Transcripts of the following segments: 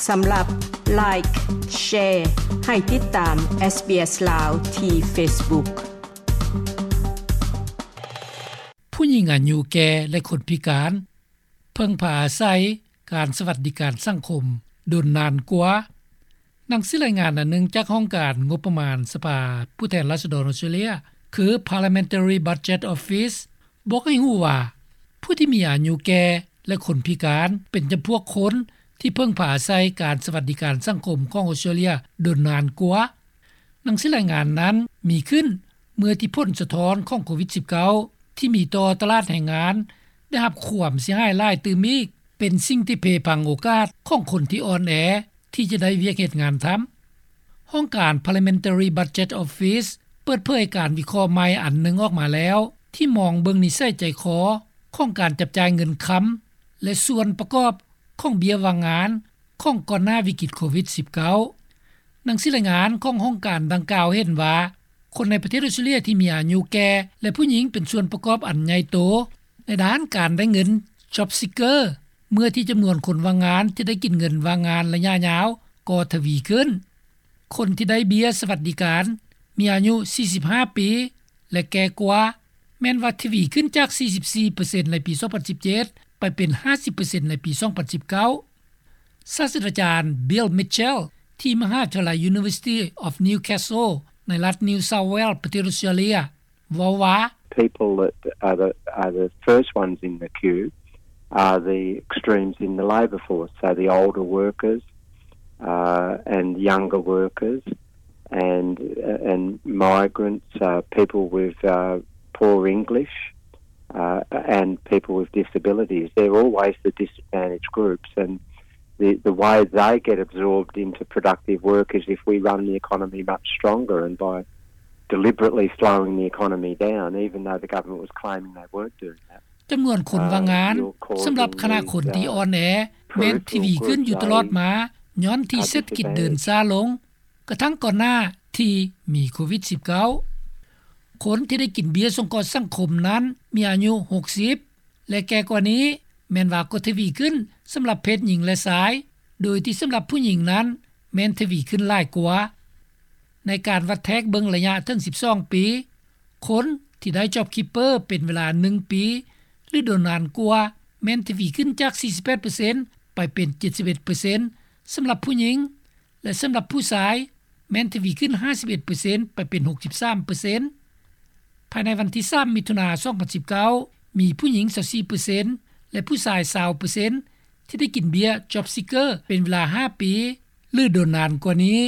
ສຳລັບ Like, Share ໃຫ້ຕິດຕາມ SBS ລາວ ທີ່ Facebook. ຜູ້ຍິງອາຍຸແກ່ ແລະ ຄົນພິການ ເພິ່ງພາອາໄສການສະຫວັດດີການສັງຄົມດົນນານກວ່າ. ໜັງສືລາຍງານອັນໜຶ່ງຈາກຫ້ອງການງົບປະມານສະພາຜູ້ແທນລາຊະດອນອອສເຕຣເລັຍ ຄື Parliamentary Budget Office ບອກໃຫ້ຮູ້ວ່າ ຜູ້ທີ່ມີອາຍຸແກ່ ແລະ ຄົນພິການ ເປັນຈຳພວກຄົນທີ່ເພິ່ງພາອາໄສການສະຫວັດດີການສັງຄົມຂອງອອສເຕຣເລັຍດົນນານກວ່າ. ໜັງສືລາຍງານນັ້ນມີຂຶ້ນເມື່ອທີ່ຜົນສະທ້ອນຂອງໂຄວິດສິບເກົ້າ ທີ່ມີຕໍ່ຕະຫຼາດແຮງງານ ໄດ້ຮັບຄວາມເສຍຫາຍຫຼາຍຕື່ມອີກ ເປັນສິ່ງທີ່ເພພັງໂອກາດຂອງຄົນທີ່ອ່ອນແອທີ່ຈະໄດ້ວຽກເຮັດງານທຳ. ຫ້ອງການ Parliamentary Budget Office ເປີດເຜີຍການວິເຄາະໃໝ່ອັນໜຶ່ງອອກມາແລ້ວ ທີ່ມອງເບິ່ງນິໄສໃຈຄໍຂອງການຈັບຈ່າຍເງິນຄຳ ແລະ ສ່ວນປະກອບຂອງເບ້ຍວ່າງງານຂອງກ່ອນໜ້າວິກິດໂຄວິດສິບເກົ້າ. ໜັງສືລາຍງານຂອງຫ້ອງການດັ່ງກ່າວເຫັນວ່າ ຄົນໃນປະເທດອອສເຕຣເລັຍທີ່ມີອາຍຸແກ່ ແລະ ຜູ້ຍິງເປັນສ່ວນປະກອບອັນໃຫຍ່ໂຕໃນດ້ານການໄດ້ເງິນ Job Seeker ເມື່ອທີ່ຈຳນວນຄົນວ່າງງານທີ່ໄດ້ກິນເງິນວ່າງງານໄລຍະຍາວກໍທະວີຂຶ້ນ. ຄົນທີ່ໄດ້ເບ້ຍສະຫວັດດີການ ມີອາຍຸສີ່ສິບຫ້າປີ ແລະ ແກ່ກວ່າ ແມ່ນວ່າທະວີຂຶ້ນຈາກສີ່ສິບສີ່ເປີເຊັນໃນປີສອງພັນສິບເຈັດ ໄປເປັນຫ້າສິບເປີເຊັນໃນປີສອງພັນສິບເກົ້າ. ສາດສະດາຈານ Bill Mitchell ທີ່ມະຫາວິທະຍາໄລ University of Newcastle ໃນລັດ New South Wales ປະເທດອອສເຕຣເລັຍ ເວົ້າວ່າ People that are the, are the first ones in the queue are the extremes in the labour force, so the older workers, uh, and younger workers, and, uh, and migrants, uh, people with, uh, poor English, uh, and people with disabilities. They're always the disadvantaged groups, and the, the way they get absorbed into productive work is if we run the economy much stronger, and by deliberately slowing the economy down, even though the government was claiming they weren't doing that. ຈຳນວນຄົນວ່າງງານສຳລັບຄະນະຄົນທີ່ອ່ອນແອແມ່ນທະວີຂຶ້ນຢູ່ຕະຫຼອດມາ ຍ້ອນທີ່ເສດຖະກິດເດີນຊ້າລົງ ກະທັ່ງກ່ອນໜ້າທີ່ມີໂຄວິດສິບເກົ້າ. ຄົນທີ່ໄດ້ກິນເບ້ຍສົງເຄາະສັງຄົມນັ້ນມີອາຍຸຫົກສິບ ແລະ ແກ່ກວ່ານີ້ ແມ່ນວ່າກໍທະວີຂຶ້ນສຳລັບເພດຍິງ ແລະ ຊາຍ ໂດຍທີ່ສຳລັບຜູ້ຍິງນັ້ນແມ່ນທະວີຂຶ້ນຫຼາຍກວ່າ. ໃນການວັດແທກເບິ່ງໄລຍະເຖິງສິບສອງປີ, ຄົນທີ່ໄດ້ JobKeeper ເປັນເວລາໜຶ່ງປີ ຫຼື ດົນນານກວ່າ ແມ່ນທະວີຂຶ້ນຈາກສີ່ສິບແປດເປີເຊັນ ໄປເປັນເຈັດສິບເອັດເປີເຊັນ ສຳລັບຜູ້ຍິງ ແລະ ສຳລັບຜູ້ຊາຍ ແມ່ນທະວີຂຶ້ນຫ້າສິບເອັດເປີເຊັນ ໄປເປັນຫົກສິບສາມເປີເຊັນ. ພາຍໃນວັນທີສາມ ມິຖຸນາ ສອງພັນສິບເກົ້າ ມີຜູ້ຍິງຊາວສີ່ເປີເຊັນ ແລະ ຜູ້ຊາຍຊາວເປີເຊັນ ທີ່ໄດ້ກິນເບ້ຍ JobSeeker ເປັນເວລາຫ້າປີ ຫຼື ດົນນານກວ່ານີ້.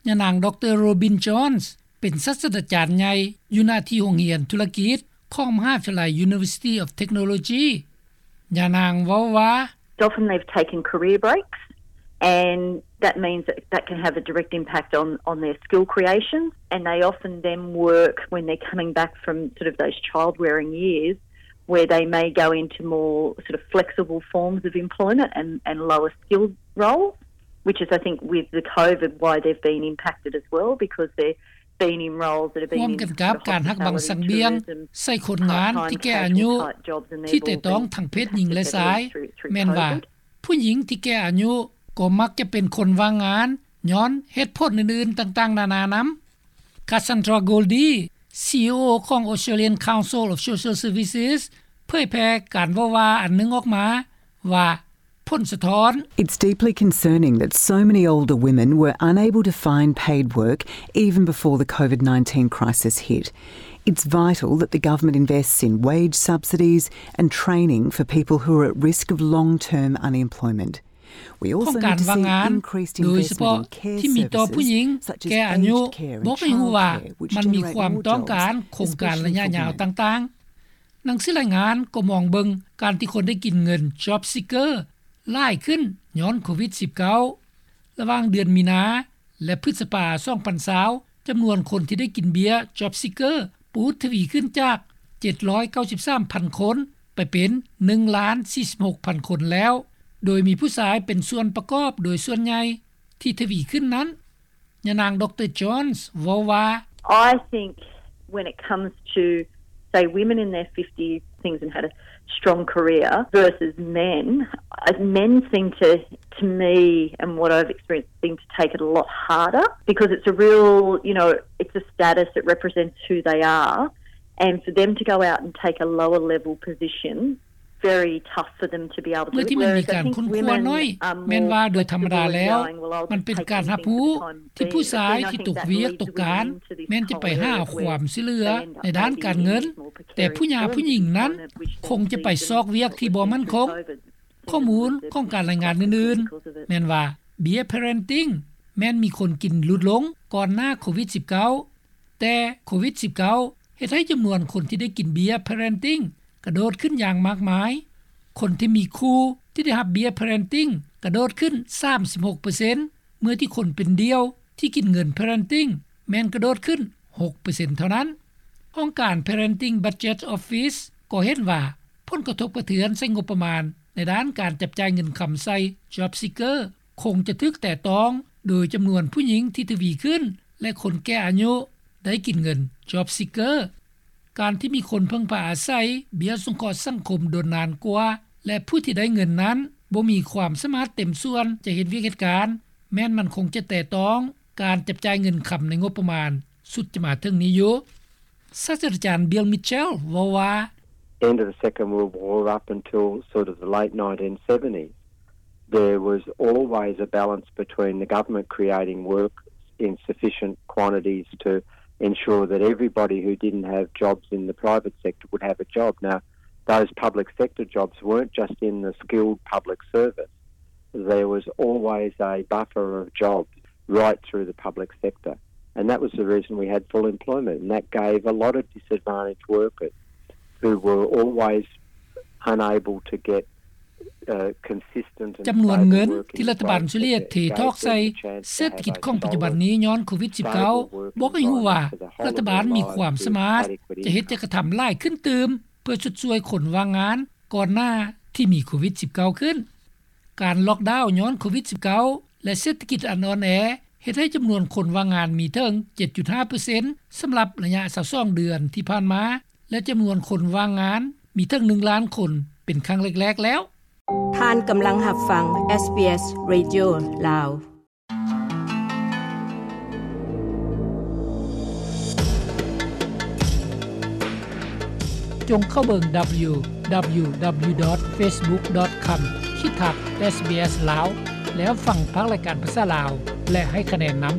ຍານາງ ດຣ. Robin Johns ເປັນສາດສະດາຈານໃຫຍ່ຢູ່ໜ້າທີ່ໂຮງຮຽນທຸລະກິດຂອງມະຫາວິທະຍາໄລ University of Technology. ຍານາງເວົ້າວ່າ Often they've taken career breaks, and that means that that can have a direct impact on, on their skill creation, and they often then work when they're coming back from sort of those child-rearing years, where they may go into more sort of flexible forms of employment and, and lower skilled roles, which is, I think, with the COVID, why they've been impacted as well, because they're ຮ່ວມກັນກັບການຫັກບັງສັງບຽງໃສ່ຄົນງານທີ່ແກ່ອາຍຸ ທີ່ແຕະຕ້ອງທັງເພດຍິງ ແລະ ຊາຍ, ແມ່ນວ່າຜູ້ຍິງທີ່ແກ່ອາຍຸກໍມັກຈະເປັນຄົນວ່າງງານ ຍ້ອນເຫດຜົນອື່ນໆຕ່າງໆນານານຳ. Cassandra Goldie, CEO ຂອງ Australian Council of Social Services ເຜີຍແຜ່ການເວົ້າວ່າອັນໜຶ່ງອອກມາວ່າ ຜົນສະທ້ອນ. It's deeply concerning that so many older women were unable to find paid work even before the COVID nineteen crisis hit. It's vital that the government invests in wage subsidies and training for people who are at risk of long-term unemployment. We also need to see increased investment in care services, such as aged care and childcare, which are ຂອງການວ່າງງານ ໂດຍສະເພາະທີ່ມີຕໍ່ຜູ້ຍິງແກ່ອາຍຸ ບອກໃຫ້ຮູ້ວ່າມັນມີຄວາມຕ້ອງການໂຄງການໄລຍະຍາວຕ່າງໆ. ໜັງສືລາຍງານກໍມອງເບິ່ງການທີ່ຄົນໄດ້ກິນເງິນ JobSeeker ຫຼາຍຂຶ້ນຍ້ອນໂຄວິດສິບເກົ້າ. ລະຫວ່າງເດືອນມີນາ ແລະ ພຶດສະພາ ສອງພັນຊາວ ຈຳນວນຄົນທີ່ໄດ້ກິນເບ້ຍ JobSeeker ປູດທະວີຂຶ້ນຈາກເຈັດຮ້ອຍເກົ້າສິບສາມພັນຄົນ ໄປເປັນໜຶ່ງລ້ານສີ່ສິບຫົກພັນຄົນແລ້ວ, ໂດຍມີຜູ້ຊາຍເປັນສ່ວນປະກອບໂດຍສ່ວນໃຫຍ່ທີ່ທະວີຂຶ້ນນັ້ນ. ຍານາງ ດຣ. Johns ເວົ້າວ່າ I think when it comes to, say, women in their fifties, things and had a strong career versus men. Uh, men seem to, to me and what I've experienced, seem to take it a lot harder because it's a real, you know, it's a status, it represents who they are. And for them to go out and take a lower level position, very tough for them to be able to do it. ເມື່ອທີ່ມັນມີການຄົ້ນຄວ້ານ້ອຍ ແມ່ນວ່າໂດຍທຳມະດາແລ້ວ ມັນເປັນການຮັບຮູ້ທີ່ຜູ້ຊາຍທີ່ຕົກວຽກຕົກການ ແມ່ນຈະໄປຫາຄວາມຊ່ວຍເຫຼືອໃນດ້ານການເງິນ, ແຕ່ຜູ້ຫຍາຜູ້ຍິງນັ້ນຄົງຈະໄປຊອກວຽກທີ່ບໍ່ໝັ້ນຄົງ. ຂໍ້ມູນຂອງການລາຍງານອື່ນໆ ແມ່ນວ່າເບ້ຍ parenting ແມ່ນມີຄົນກິນຫຼຸດລົງກ່ອນໜ້າໂຄວິດ-19, ແຕ່ໂຄວິດ-19 ເຮັດໃຫ້ຈຳນວນຄົນທີ່ໄດ້ກິນເບ້ຍ parenting ກະໂດດຂຶ້ນຢ່າງມາກມາຍ. ຄົນທີ່ມີຄູ່ທີ່ໄດ້ຮັບເບ້ຍ parenting ກະໂດດຂຶ້ນ ສາມສິບຫົກເປີເຊັນ ເມື່ອທີ່ຄົນເປັນດ່ຽວທີ່ກິນເງິນ parenting ແມ່ນກະໂດດຂຶ້ນ ຫົກເປີເຊັນເທົ່ານັ້ນ. ຫ້ອງການ Parenting Budget Office ກໍເຫັນວ່າ ຜົນກະທົບກະເທືອນໃສ່ງົບປະມານໃນດ້ານການຈັບຈ່າຍເງິນຄຳໃສ່ Job Seeker ຄົງຈະຖືກແຕະຕ້ອງໂດຍຈຳນວນຜູ້ຍິງທີ່ທະວີຂຶ້ນ ແລະ ຄົນແກ່ອາຍຸໄດ້ກິນເງິນ Job Seeker. ການທີ່ມີຄົນເພິ່ງພາອາໄສເບ້ຍສົງເຄາະສັງຄົມດົນນານກວ່າ ແລະ ຜູ້ທີ່ໄດ້ເງິນນັ້ນບໍ່ມີຄວາມສາມາດເຕັມສ່ວນຈະເຮັດວຽກເຮັດການ ແມ່ນມັນຄົງຈະແຕະຕ້ອງການຈັບຈ່າຍເງິນຄຳໃນງົບປະມານ ສຸດຈະມາເຖິງນີ້ຢູ່. ສາດສະດາຈານ Bill Mitchell ເວົ້າວ່າ End of the Second World War up until sort of the late nineteen seventies, there was always a balance between the government creating work in sufficient quantities to ensure that everybody who didn't have jobs in the private sector would have a job. Now, those public sector jobs weren't just in the skilled public service. There was always a buffer of jobs right through the public sector. And that was the reason we had full employment. And that gave a lot of disadvantaged workers who were always unable to get consistent and stable work in the private sector. ຈຳນວນເງິນທີ່ລັດຖະບານເສຍເທຖອກໃສ່ເສດຖະກິດຂອງປັດຈຸບັນນີ້ຍ້ອນໂຄວິດ-19 ບອກໃຫ້ຮູ້ວ່າລັດຖະບານມີຄວາມສາມາດຈະເຮັດຈະກະທຳຫຼາຍຂຶ້ນຕື່ມ ເພື່ອຊົດຊ່ວຍຄົນວ່າງງານກ່ອນໜ້າທີ່ມີໂຄວິດ-19 ຂຶ້ນ. ການລັອກດາວຍ້ອນໂຄວິດ-19 ແລະ ເສດຖະກິດອັນອ່ອນແອ ເຮັດໃຫ້ຈຳນວນຄົນວ່າງງານມີເຖິງ ເຈັດຈຸດຫ້າເປີເຊັນ ສຳລັບໄລຍະ ຊາວສອງເດືອນທີ່ຜ່ານມາ ແລະ ຈຳນວນຄົນວ່າງງານມີເຖິງ ໜຶ່ງລ້ານຄົນ ເປັນຄັ້ງແລກໆແລ້ວ. ທ່ານກຳລັງຮັບຟັງ SBS Radio ລາວ. ຈົ່ງເຂົ້າເບິ່ງ www.facebook.com/sbs ລາວ ແລ້ວຟັງພາກລາຍການພາສາລາວ ແລະ ໃຫ້ຄະແນນນຳ.